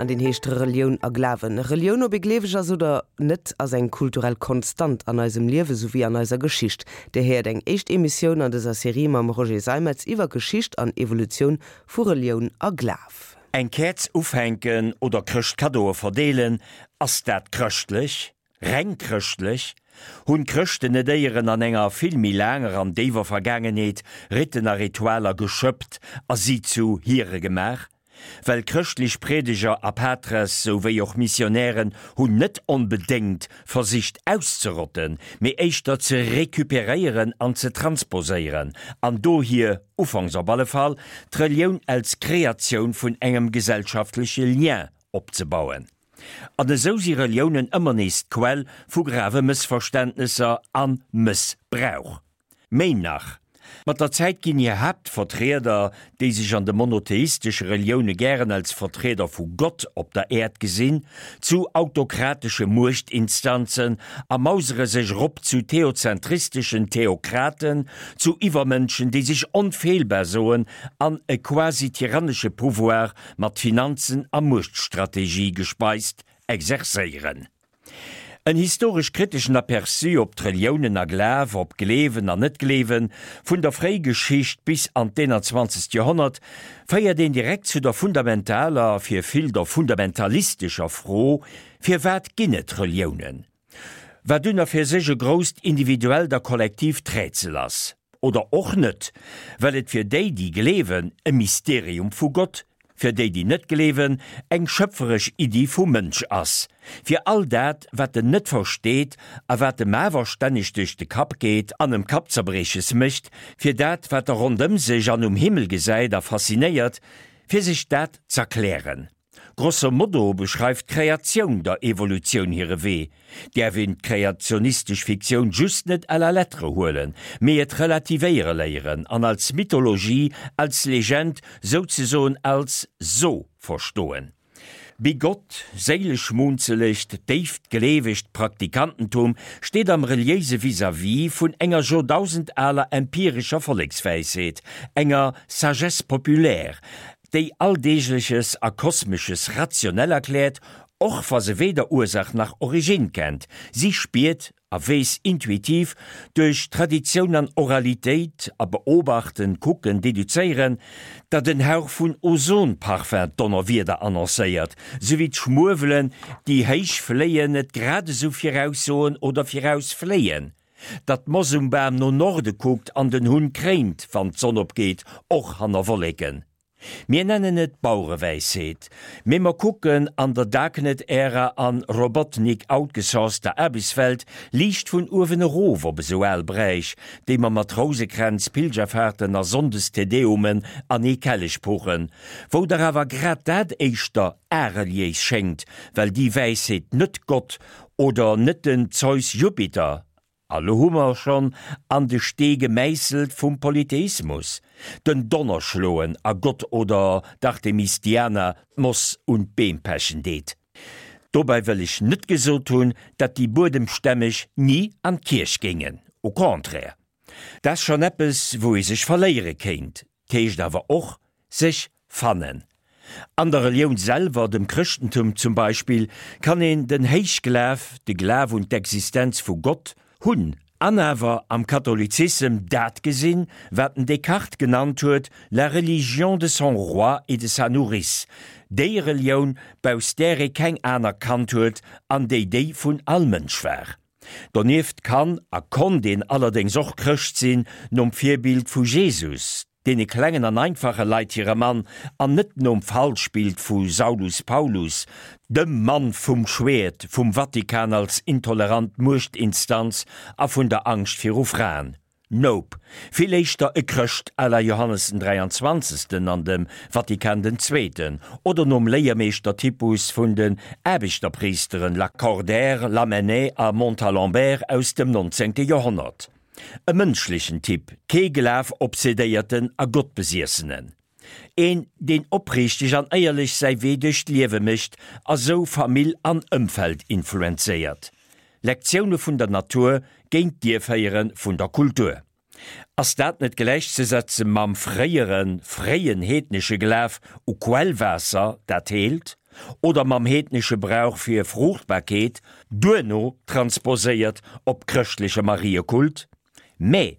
An deen heescht Relioun a Glawen. Relioun, ob ee gleeweg ass oder net, ass eng kulturell Konstant an eisem Liewe souwéi an eiser Geschicht. Dir héiert eng éischt Emissioun an dëser Serie mam Roger Seimetz iwwer Geschicht an Evolutioun vu Relioun a Glaf. Eng Käerz ufänken oder Chrëschtkaddoe verdeelen, ass dat chrëschtlech? Reng chrëschtlech? Hunn d'Chrëschten net éieren an enger vill méi laanger an déiwer Vergaangenheet Riten a Ritualer geschëppt a si zu hire gemaach? Well chrëschtlech Priedeger a Patres souwéi och Missionären hunn net onbedéngt versicht auszerotten, mee éischter ze recuperéieren an ze transposéieren an dohier, ufanks op alle Fall, d'Relioun als Kreatioun vun engem gesellschaftleche Lien opzebauen. An esou si Reliounen ëmmer nees d'Quell vu grave Mëssverständnesser a Mëssbrauch. Méi nach, mat der Zäit ginn hir Haaptvertrieder, déi sech an de monotheistesche Relioune gären als Vertrieder vu Gott op der Äerd gesinn, zu autokratesche Muechtinstanzen a mausere sech erop zu theozentristeschen Theokraten, zu Iwwermënschen, déi sech onfeelbar soen an e quasi tyrannesche Pouvoir mat Finanzen a Muechtstrategie gespeist, exerzéieren. En historesch-kriteschen Aperçu op d'Reliounen a Glaf, op Gleewen an Net-Gleewen, vun der Fréigeschicht bis an d'Eenanzwanzegt Joerhonnert, féiert een direkt zu der fundamentaler, fir vill der fundamentalistescher Fro, Firwat ginn et Reliounen? Wat un a fir sech e grousst individuellt a kollektiivt Rätsel ass. Oder och net, well et fir déi, déi gleewen, e Mysterium vu Gott, fir déi, déi net gleewen, eng schöpferesch Iddi vum Mënsch ass, fir all dat, wat en net versteet a wat em awer stänneg duerch de Kapp geet an em Kappzerbrieches mécht, fir dat, wat e rondëm sech an um Himmel gesäit a faszinéiert, fir sech dat z'erklären. Grosso modo beschreift d'Kreatioun der Evolutioun hire Wee. Däerf een d'kreationistesch Fiktioun just net à la lettre huelen, mee et relativéiere léieren an als Mythologie, als Legend, souzesoen als So verstoen. Bigott, séileschmunzelegt, déift gleewegt Praktikantentum steet am reliéise Vis-à-vis vun enger joerdausend-aler empirescher Vollekswäisheet, enger Sagesse populaire, déi Alldeegleches a Kosmesches rationell erkläert, och wa se weder Ursach nach Originn kennt. Si spiert a weess intuitiv, duerch Traditioun an Oralitéit a Beobachten, Kucken, Deduzéieren, datt en Hauch vun Ozonparfum d'Donnerwieder annoncéiert, sou wéi d'Schmuewelen, déi héich fléien, et grad esou viraussoen oder virausfléien, datt d'Moss um Bam no Norde kuckt an den Hunn kréint, wann d'Sonn opgeet, och hanner Wolleken. Mir nennen et Bauerewäisheet, mee mer kucken an der Darknet-Ära an Robotnik-outgesourcter Aarbechtswelt liicht vun uewen erof op esou al Bräich, déi mer mat Rousekränz, Pilgerfahrten a Sonndes-Te Deumen an ee Kellech puchen, wou dach awer grad dat éischter areliéis schéngt, well déi Wäisheet net Gott oder net den Zeus Jupiter, a lo hu mer schonn an de Stee gemäisselt vum Polytheismus, den Donner schloen a Gott oder d'Artemis Diana d'Moss un d'Beem pechen deet. Dobäi wëll ech net gesot hunn, dat déi Buedemstämmeg ni an d'Kierch géingen, au contraire. Dat ass schonn eppes, wou ee sech verléiere kéint, 't heescht awer och, sech fannen. An der Relioun selwer, dem Chrëschtentum zum Beispill, kann een den Héichglaf, de Glaf un d'Existenz vu Gott, hunn, an awer am Katholizissem dat gesinn, wat den Descartes genannt huet, la religion de son roi et de sa nourrice, déi Relioun, bausst där ee keng aner kannt huet an déi déi vun all Mënsch war. Donieft kann a konnt een allerdéngs och Chrëscht sinn, nom Virbild vu Jesus, deene klengen an einfache Leit hire Mann, an net nom Falschbild vu Saulus Paulus, dem Mann vum Schwäert, vum Vatikan als intolerant Muechtinstanz a vun der Angscht viru Fraen. Nope, vill éischter e Chrëscht à la Johannes den Dräianzwanzegsten an dem Vatikan den Zweeten, oder nom Léiermeeschter-Typus vun den Aarbechterpriesteren Lacordaire, Lamennais a Montalembert aus dem nonzéngte Joerhonnert. E mënschlechen Typ, kee Glaf-Obsedéierten a Gottbesiessenen. Een, deen opriichteg an éierlech säi Wee duerch d'Liewe mécht a sou Famill an Ëmfeld influenzéiert. Lektioune vun der Natur géint d'Ierféiere vun der Kultur. Ass dat net gläichzesetze mam fréiere, fréien heednesche Glaf u Quellwaasser, dat heelt? Oder mam heednesche Brauch fir Fruuchtbarkeet, duerno transposéiert op chrëschtleche Mariekult? Mä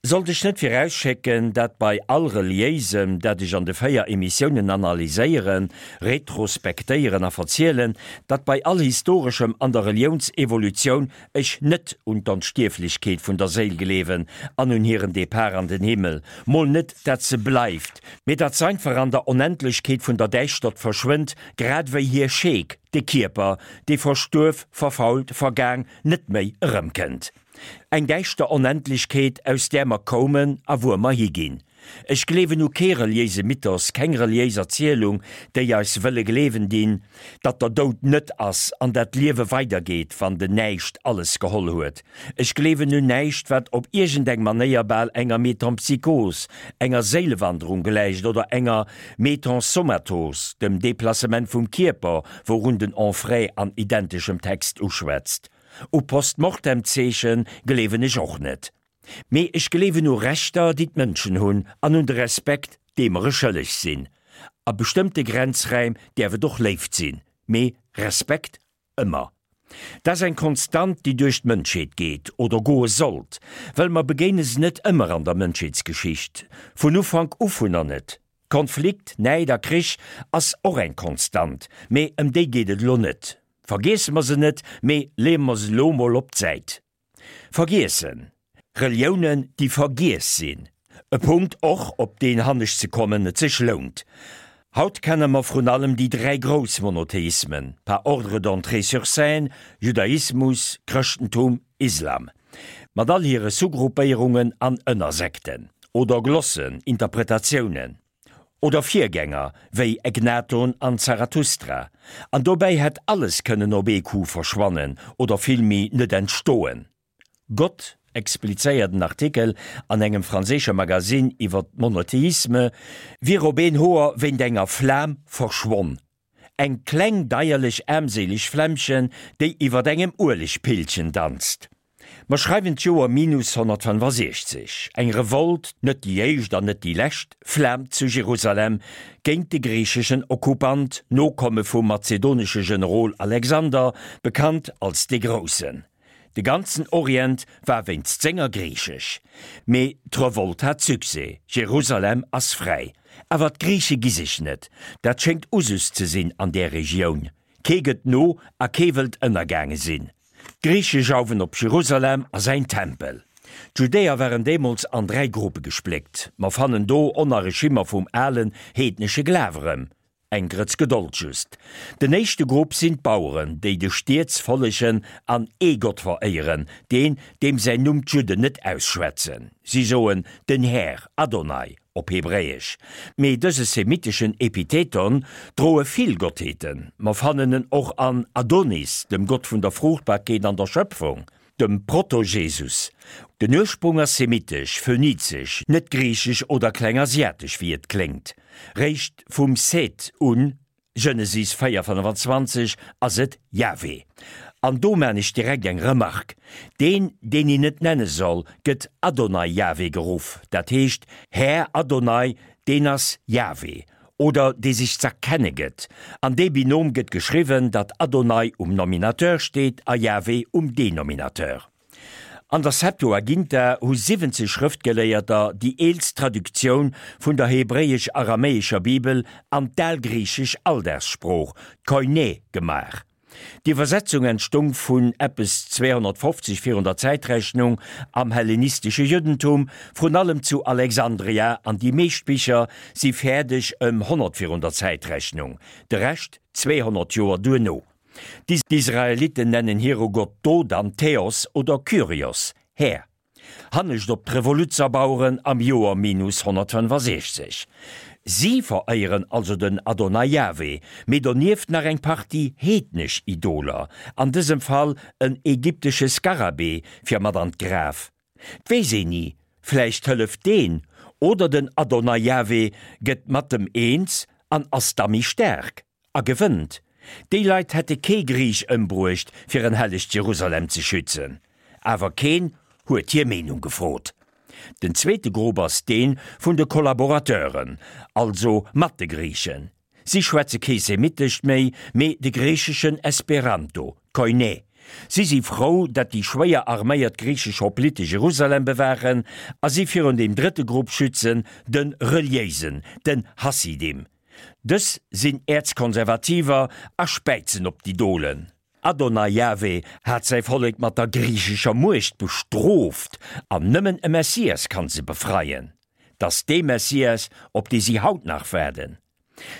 sollt ech net virausschécken, dat bei all Reliéisem, dat ech an de 4 Emissiounen analyséieren, retrospektéieren a verzielen, dat bei all Historeschem an der Reliounsevolutioun ech net un d'Onstierflechkeet vun der Séil gleewen an un hiren Depart an den Himmel, mol net dat se bleift, mee dat s'einfach an der Onendlechkeet vun der Däischtert verschwënnt, grad ewéi hir Scheek, de Kierper, dee verstuerf, verfault, vergaang, net méi erëmkënnt. Eng däischter Onendlechkeet, aus där mer koumen a wuer mer higinn. Ech gleewen u kee reliéise Mythos, keng reliéis Erzielung, déi eis wëlle gleewen dinn, datt der Doud net ass an dat d'Liewe weidergeet, wann den Näischt alles geholl huet. Ech gleewen un näischt, wat op iergendeng Manéier bal enger Metempsychos, enger Séilewanderung gläicht oder enger Metensomatos, dem Deplacement vum Kierper, wourun den Onfray an identeschem Text uschwätzt. U Post-Mortem-Zeeche gleewen ech och net. Mee ech gleewen u Rechter, déi d'Mënschen hunn, an un de Respekt, dee mer e schëlleg sinn. A bestëmmte Grenzräim däerf et och Léift sinn, mee Respekt ëmmer. Dat ass eng Konstant, déi duerch d'Mënschheet geet, oder goe sollt, well mer begéine se net ëmmer an der Mënschheetsgeschicht, vun Ufank u vunner net. Konflikt, Näid a Krich ass och eng Konstant, mee ëm déi geet et elo net. Vergiesse mer se net, mee leeë mer se elo mol op d'Säit. Vergiessen. Reliounen, déi vergiess sinn. E Punkt och, op deen hannescht ze kommen et sech lount. Haut kenne mer vrun allem déi 3 grouss Monotheismen, par ordre d'entrée sur scène, Judaismus, Chrëschtentum, Islam. Mat all hire Sous-Gruppéierungen an Ënnersekten. Oder Glossen, Interpretatiounen. Oder Virgänger wéi Egnaton an Zarathustra. An dobäi hätt alles kënnen op ee Coup verschwannen oder villméi net entstoen. Gott, explizéiert en Artikel an engem franséische Magasinn iwwer d'Monotheisme, wier op een Hoer wéint enger Flam verschwonn. Eng kleng deierlech aarmséileg Flämmchen, déi iwwert engem Uelegpillchen danzt. Mer schreiwen d'Joer minus 165. Eng Revolt, net déi éischt an net déi lescht, flaamt zu Jerusalem géint de griicheschen Okkupant, Nokomme vum mazedonesche Generol Alexander, bekannt als de Groussen. De ganzen Orient war wéinst senger griichesch. Mee d'Revolt hat Succès, Jerusalem ass fräi. Awer d'Griiche gi sech net. Dat schéngt Usus ze sinn an där Regioun. Kee gëtt no a kee wëllt ënnergaange sinn. D'Griiche jauwen op Jerusalem a säin Tempel. D'Judäer waren deemools an 3 Gruppe gespléckt. Mer fannen do Onnerreschimmer vum alen heednesche Glaf erëm. Eng Grëtz Gedold just. Den éischte Grupp sinn d'Baueren, déi de Stieds follegen an ee Gott veréieren, deen, deem säin Numm d'Judden net ausschwätzen. Si soen den Här, Adonai op Hebräesch. Mee dëse semiteschen Epitheton droe vill Gottheeten. Mer fannen en och an Adonis, dem Gott vun der Fruuchtbarkeet an der Schöpfung. Dem Proto-Jesus. Den Ursprung ass semitesch, phönizesch, net griichesch oder klengasiatesch wéi et kléngt. Réischt vum Seth un, Genesis 4, 25, ass et Jahwe. An do maan ech direkt eng Remarque, Deen, deen een net nenne soll, gëtt Adonai Jahwe geruff, dat heescht Här Adonai, deen ass Jahwe. Oder dee sech z'erkenne gëtt. An dee Binom gëtt geschriwwen, datt Adonai um Nominateur steet a Jahwe um Denominateur. An der Septuaginta hu 70 Schrëftgeléierter déi eelst Traduktioun vun der hebräesch-aramäescher Bibel an d'algriichesch Alldagssprooch, d'Koiné, gemaach. D'Iwwersetzung entstung vun eppes 250 virun der Zäitrechnung am hellenistesche Juddentum, vrun allem zu Alexandria, an déi meescht Bicher si fäerdeg ëm 100 virun der Zäitrechnung, de Rescht 200 Joer duerno. D'Israelitten nennen hire Gott do dann Theos oder Kyrios, Här. Hannescht op d'Revoluzerbaueren am Joer minus 165. Si veréieren also den Adonai Jahwe, mee donieft nach eng Partie heednesch Idoler, an dësem Fall en ägyptesche Skarabee fir mat an d'Graf. 't weess een ni, vläicht hëlleft deen, oder den Adonai Jahwe gëtt mat em eens an ass da méi staark. A gewënnt. Déi Leit hätte kee Griich ëmbruecht, fir en hellegt Jerusalem ze schützen. Awer keen huet hir Meenung gefrot. Den zweete Grupp ass dee vun de Kollaborateuren, also mat de Griichen. Si schwätze kee Semitescht méi, mee de griicheschen Esperanto, Koiné. Si si frou, datt déi schwéier arméiert griichesch Hoplite Jerusalem bewaachen a si virun deem drëtte Grupp schützen, de Reliéisen, den Hassidim. Dës sinn Äerzkonservativer a späizen op d'Idolen. Adonai Jahwe hat säi Vollek mat der griichescher Muecht bestrooft an nëmmen e Messias kann se befreien. 't ass dee Messias, op dee si haut nach waarden.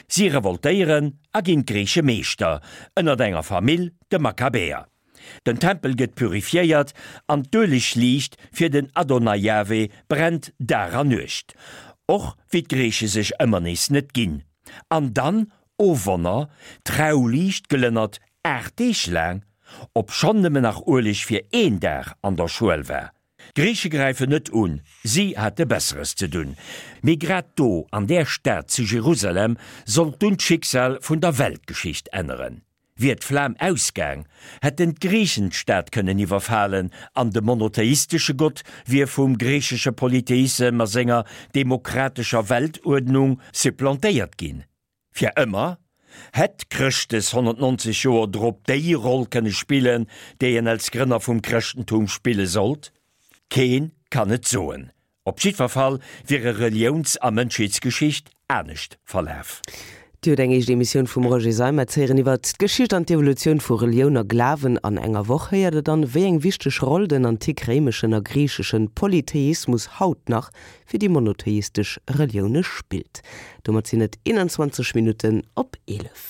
Si revoltéieren a ginn d'Griiche Meeschter, ënnert enger Famill, de Makkabäer. Den Tempel gëtt purifiéiert an d'Uelegliicht fir den Adonai Jahwe brennt Dag a Nuecht, och wéi d'Griiche sech ëmmer nees net ginn. An dann, o Wonner, d'Trauliicht glënnert 8 Deeg laang, obschonn nëmmen nach Ueleg fir een Dag an der Schuel war. D'Griiche gräifen net un, si hate Besseres ze dunn. Mee grad do, an där Stad zu Jerusalem, sollt dunn d'Schicksal vun der Weltgeschicht änneren. Wier d'Flam ausgaang, hätten d'Griichen d'Stad kënnen iwwerfalen an de monotheistesche Gott wier vum griichesche Polytheissem a senger demokratescher Weltuerdnung supplantéiert ginn. Fir ëmmer? Hätt Chrëschtes 190 Joer drop déi Roll kënne spillen, déi en als Grënner vum Chrëschtentum spille sollt? Keen kann et soen. Op jiddwer Fall wier e Reliouns a Mënschheetsgeschicht anescht verlaf. Dir hutt eng éischt Emissioun vum Roger Seimetz héieren iwwert d'Geschicht an d'Evolutioun vu Relioun a Glawen. An enger Woch héiert der dann, wéi eng wichteg Roll den antik-réimeschen a griicheschen Polytheismus haut nach fir déi monotheistesch Relioune spillt. Domat sinn et 21 Minutten op 11.